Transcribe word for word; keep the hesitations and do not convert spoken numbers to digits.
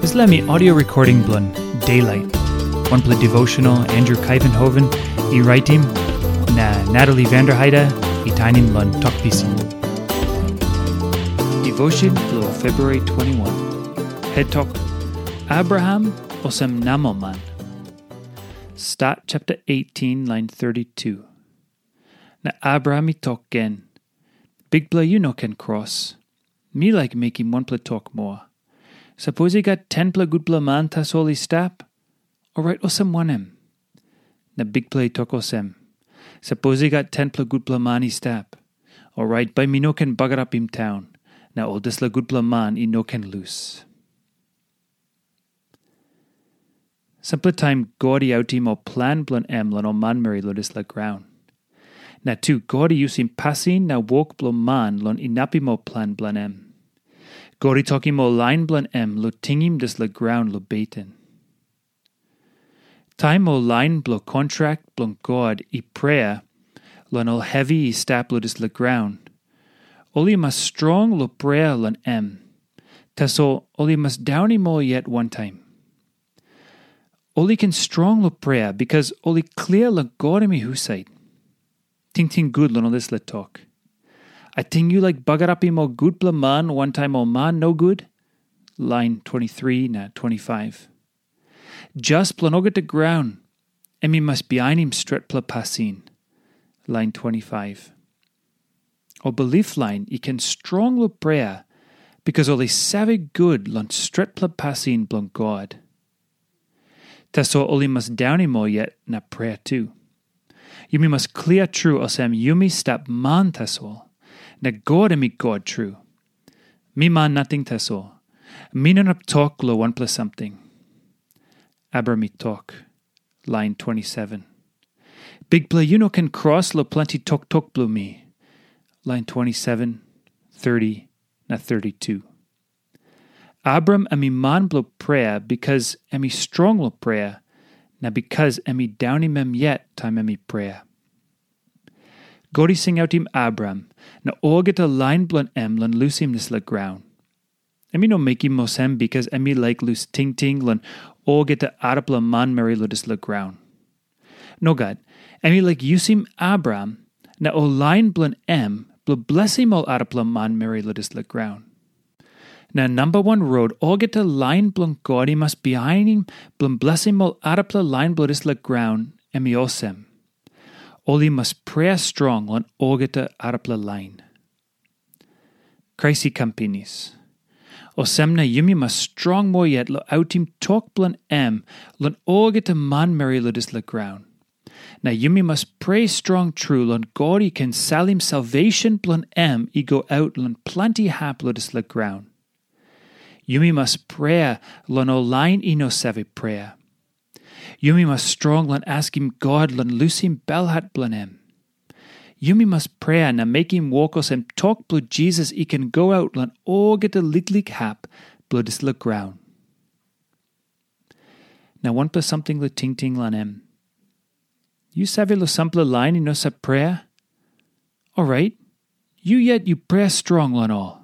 Dispela mi audio recording bilong Daylight, wanpela devotional Andrew Kaivenhoven i raitim, na Natalie Vanderheide i tainim long Tok Pisin. Devotion bilong February twenty-one. Head Tok, Abraham olsem namelman. Stat chapter eighteen, lain thirty-two. Na Abraham i tok gen, "Bikpela, yu no ken kros. Mi laik mekim wanpela tok moa. Sapos i gat tenpela gutpela man tasol i stap, orait olsem wanem?" Na Bikpela i tok olsem, "Sapos i gat tenpela gutpela man i stap, orait bai mi no ken bagarapim taun, na ol dispela gutpela man i no ken lus." Sampela taim God i autim ol plan bilong em long ol manmeri long dispela graun. Na tu God i yusim pasin na wok bilong man long inapim ol plan bilong em. God i tokim ol lain bilong em long tingim dispela graun long beten. Taim ol lain bilong kontrak bilong God i prea long ol hevi i stap long dispela graun, ol i mas strong long prea long em. Tasol ol i mas daunim ol yet wantaim. Ol i ken strong long prea bikas ol i klia long God em i husat. Tingting gut long ol dispela tok. Ating yu laik bagarapim ol gutpela man wantaim ol man nogut? Lain twenty-three na twenty-five. Jas bilong olgeta graun, em i mas bihainim stretpela pasin. Lain twenty-five. Ol bilip lain i ken strong long prea, bikas ol i save gut long stretpela pasin bilong God. Tasol ol i mas daunim ol yet na prea tu. Yumi mas klia tru olsem yumi stap man tasol, na God em i God tru. Mi man nating tasol. Mi no inap tok long wanpela samting. Abraham i tok, lain twenty-seven. Bikpela, yu no ken kros long planti toktok bilong mi. Lain twenty-seven, thirty, na thirty-two. Abraham em i man bilong prea bikas em i strong long prea, na bikas em i daunim em yet taim em i prea. God i singautim Abraham na olgeta lain bilong em long lusim dispela graun. Em i no mekim olsem bikas em i laik lus tingting long olgeta arapela manmeri long dispela graun. Nogat, em i laik yusim Abraham na ol lain bilong em bilong blesim ol arapela manmeri long dispela graun. Na namba wan rot olgeta lain bilong God i mas bihainim bilong blesim ol arapela lain bilong dispela graun, em i olsem, ol i mas prea strong long olgeta arapela lain. Krais i kam pinis. Olsem na yumi mas strong moa yet long autim tok bilong em long olgeta manmeri long dispela graun. Na yumi mas prea strong tru long God i ken salim salvesen bilong em i go aut long planti hap long dispela graun. Yumi mas prea long ol lain i no save prea. Yumi mas strong long askim God long lusim belhat bilong em. Yumi mas prea na mekim wok olsem tok bilong Jisas i ken go aut long olgeta liklik hap bilong dispela graun. Na wanpela samting long tingting long em. Yu save long sampela lain i no save prea? Orait, yu yet yu prea strong long ol.